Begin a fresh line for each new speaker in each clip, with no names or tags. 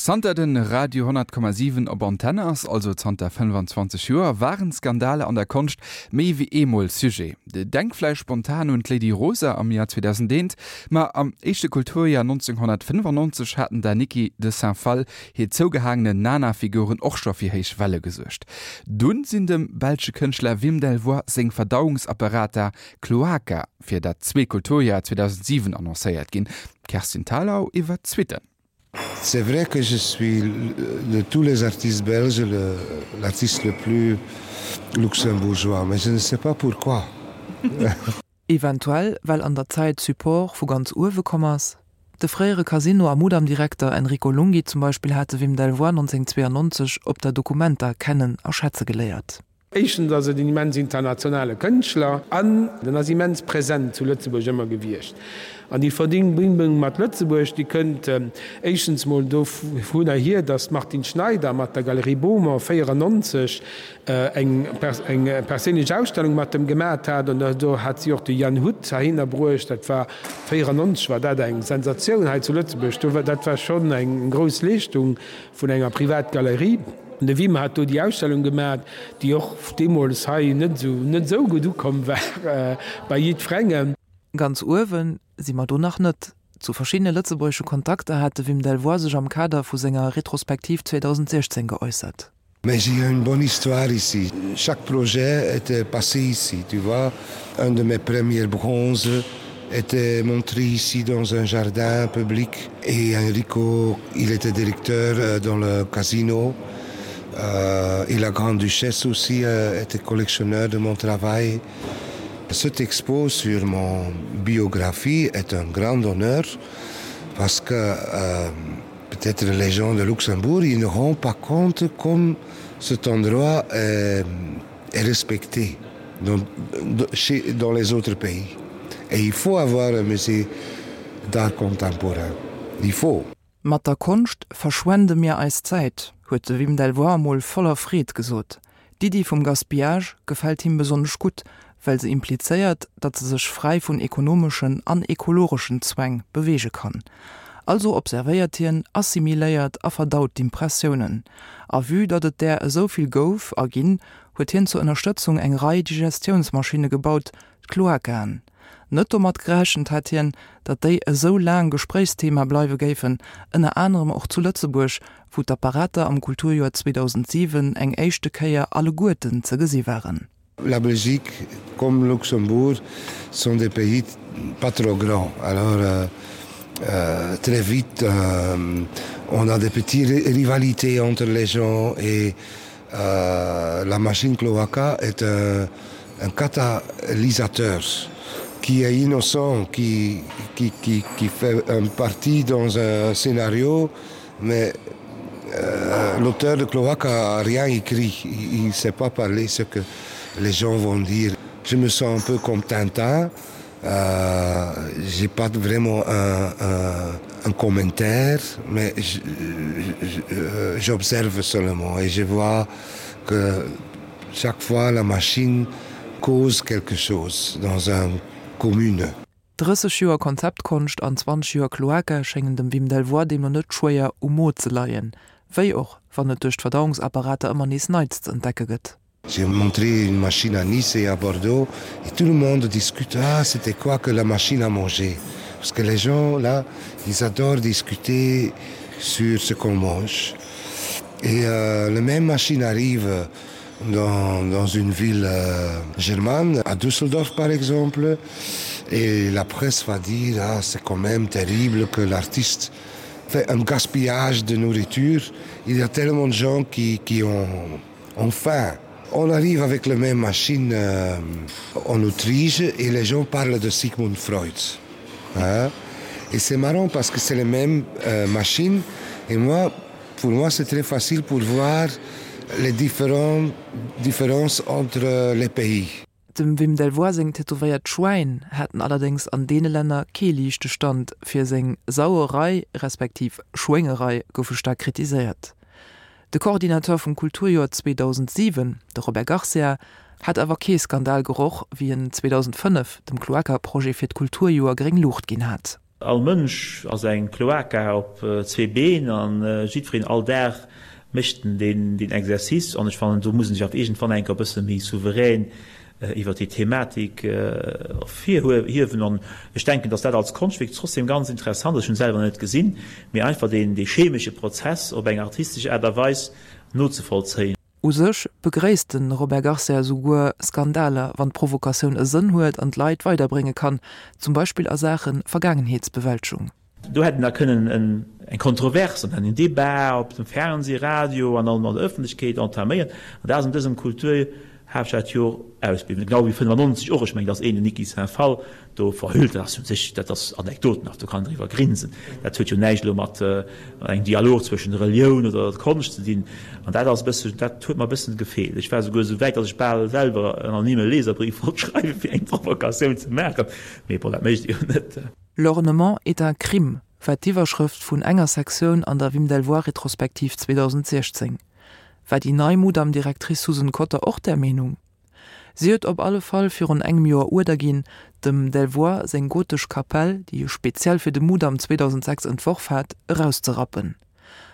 Zanter de Radio 100,7 op Antenne ass, also zanter 25 Joer, waren Skandaler an der Konscht méi wéi eemol Sujet. Denk vläicht spontan un d'Lady Rosa am Joer 2001, ma am éischte Kulturjoer 1995 haten der Niki de Saint Phalle hir zougehaangenen Nana-Figuren och scho fir héich Welle gesuergt. Dunn sinn dem belsche Kënschtler Wim Delvoye seng Verdauungsapparater Cloaca fir dat zweet Kulturjoer 2007 annoncéiert ginn. D'Kerstin Thalau iwwer d'Suitten.
C'est vrai que je suis de tous les artistes belges l'artiste le plus luxembourgeois, mais je ne sais pas pourquoi.
Eventuell well an der Zäit Support vu ganz uewe komm ass. De fréiere Casino a Mudam-Direkter Enrico Lunghi zum Beispill hat de Wim Delvoye 1992 op der Documenta kennen a schätze geléiert.
Éischtens ass et en immens internationale Kënschtler an en ass immens present zu Lëtzebuerg ëmmer gewiescht. An déi Verbindung mat Lëtzebuerg, déi kënnt éischtens mol dovunner hier, datt d'Martine Schneider mat der Galerie Beaumont 94 eng perséinlech Ausstellung mat em gemat hat. An do hat si och de Jan Huth heihinner bruecht. Dat war 94 war dat eng Sensatioun hei zu Lëtzebuerg. Dat war schonn eng grouss Leeschtung vun enger Privatgalerie. De Wim hat do déi Ausstellung gemat, déi och deemools hei net esou net esou gutt ukomm war bei jiddwerengem.
Ganz uewe si mer do nach net. Zu verschiddene lëtzebuergesche Kontakter hat de Wim Delvoye sech am Kader vu senger Retrospektiv 2016 geäussert.
Mais j'ai une bonne histoire ici. Chaque projet était passé ici, tu vois. Un de mes premiers bronzes était montré ici dans un jardin public et Enrico il était directeur euh, dans le casino euh, et la grande duchesse aussi euh, était collectionneur de mon travail. Cette expo sur mon biographie est un grand honneur parce que euh, peut-être les gens de Luxembourg ils ne rendent pas compte comme cet endroit est, est respecté dans, chez, dans les autres pays. Et il faut avoir un musée d'art contemporain. Il faut.
Mat der Konscht verschwende mir eis Zäit, huet de Wim Delvoye emol voller Freed gesot. D'Iddi vum Gaspillage gefält him besonnesch gutt, well se implizéiert, datt se sech fräi vun ekonomeschen an ekologeschen Zwäng beweege kann. Also observéiert hien, assimiléiert a verdaut d'Impressiounen. A vue datt et där esou vill gouf a ginn, huet hien zur Ënnerstëtzung eng Rei Digestiounsmaschinne gebaut, d'Cloacaen. Net domat gerechent hat hien, datt déi esou laang Gespréichsthema bleiwe géifen, ënner anerem och zu Lëtzebuerg, wou d'Apparater am Kulturjoer 2007 eng éischte Kéier alleguerten ze gesi waren.
La Belgique comme Luxembourg sont des pays pas trop grands alors euh, euh, très vite euh, on a des petites rivalités entre les gens et euh, la machine cloaca est un, un catalysateur qui est innocent qui, qui, qui, qui fait un parti dans un scénario mais euh, l'auteur de cloaca a rien écrit il ne sait pas parler ce que les gens vont dire je me sens un peu comme Tintin euh, j'ai pas vraiment un, un, un commentaire mais euh, j'observe seulement et je vois que chaque fois la machine cause quelque chose dans un commune.
30 Joer Konzeptkonscht an 20 Joer Cloaca schéngen dem Wim Delvoye deemno net schwéier um Mo ze leien, wéi och wann et duerch d'Verdauungsapparater ëmmer nees Neits ze entdecke gëtt.
J'ai montré une machine à Nice et à Bordeaux et tout le monde discute ah c'était quoi que la machine à manger parce que les gens là ils adorent discuter sur ce qu'on mange et euh, la même machine arrive dans, dans une ville euh, germane à Düsseldorf par exemple et la presse va dire ah, c'est quand même terrible que l'artiste fait un gaspillage de nourriture il y a tellement de gens qui, qui ont ont faim on arrive avec la même machine euh, en Autriche et les gens parlent de Sigmund Freud hein et c'est marrant parce que c'est les mêmes euh, machines et moi pour moi c'est très facile pour voir les différentes différences entre les pays.
Dem Wim Delvoye seng tätowéiert Schwäin haten allerdéngs an deene Länner kee liichte Stand, fir seng Sauerei respektiv Schwéngerei goufe staark kritiséiert. De Coordinateur vum Kulturjoer 2007, de Robert Garcia, hat awer kee Skandal geroch, wéi en 2005 dem Cloaca-Projet fir d'Kulturjoer gréng Luucht ginn hat.
All Mënsch ass eng Cloaca op zwee Been an jiddwereen all Dag mécht en deen Exercice an ech fannen do muss en sech awer iergendwann eng Kéier e bësse méi souverän iwwert déi Thematik ervirhiewen an ech denken, datt dat als Konschtwierk trotzdem ganz interessant ass, ech hunn et selwer net gesinn, mee einfach deen dee chemesche Prozess op eng artistesch Aart a Weis nozevollzéien.
U sech begréisst de Robert Garcia esouguer Skandaler, wann d'Provokatioun e Sënn huet an d'Leit weiderbrénge kann, zum Beispill a Saache Vergaangenheetsbewältegung.
Do hätt een da kënnen eng Kontrovers an en Debat op dem Fernseh, Radio an an der Ëffentlechkeet entaméieren. An dat ass an dësem Kulturhaaptstadjoer ausbliwwen. Genau wéi 95 och. Ech mengen, datt een den Niki Saint-Phal do verhüllt, dat ass u sech, dat ass anekdotenhaft, do kann een driwwer grinsen. Dat huet jo näischt elo mat engem Dialog zwëschen der Relioun oder der Konscht ze dinn. An dat ass e bëssen, dat huet mer e bëssen gefeelt. Ech war esouguer esou wäit, datt ech bal selwer en anonyme Leserbrief wollt schreiwen, fir eng Provokatioun ze maachen. Mee bon, dat mécht ee jo net.
L'ornement est un crime war d'Iwwerschrëft vun enger Sektioun an der Wim Delvoye-Retrospektiv 2016. War déi nei Mudam-Directrice Susan Cotter och där Meenung? Si huet op alle Fall virun engem Joer Uerder ginn, dem Delvoye seng gotesch Kapell, déi e speziell fir de Mudam 2006 entworf hat, erauszerappen.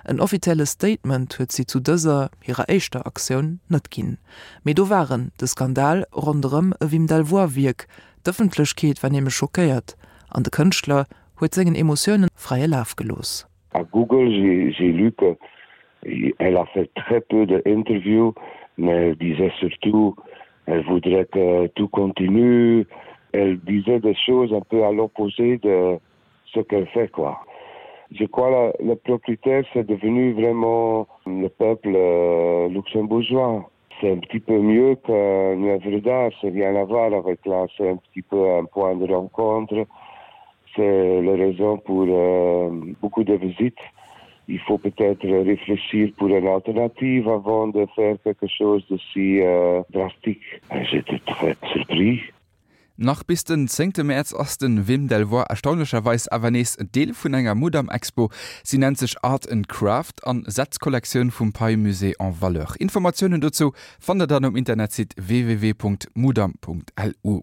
En offizielle Statement huet si zu dëser, hirer éischter Aktioun, net ginn. Mee do war en, de Skandal ronderëm e Wim Delvoye-Wierk. D'Ëffentlechkeet war nämlech schockéiert an de Kënschtler huet sengen Emotioune fräie Laf gelooss.
À Google, j'ai lu que elle a fait très peu d'interviews, mais elle disait surtout elle voudrait que tout continue. Elle disait des choses un peu à l'opposé de ce qu'elle fait quoi. Je crois la, le propriétaire c'est devenu vraiment le peuple euh, luxembourgeois. C'est un petit peu mieux qu'une œuvre d'art, c'est rien à voir avec là, c'est un petit peu un point de rencontre. C'est la raison pour euh, beaucoup de visites. Il faut peut-être réfléchir pour une alternative avant de faire quelque chose de si euh, drastique. J'étais très surpris.
Nach bis den zéngte Mäerz ass de Wim Delvoye erstaunlecherweis awer nees Deel vun enger Mudam-Expo. Si nennt sech Art and Craft an setzt d'Kollektioun vum Pei-Musée en valeur. Informatiounen dozou fannt der dann um Internetsite www.mudam.lu.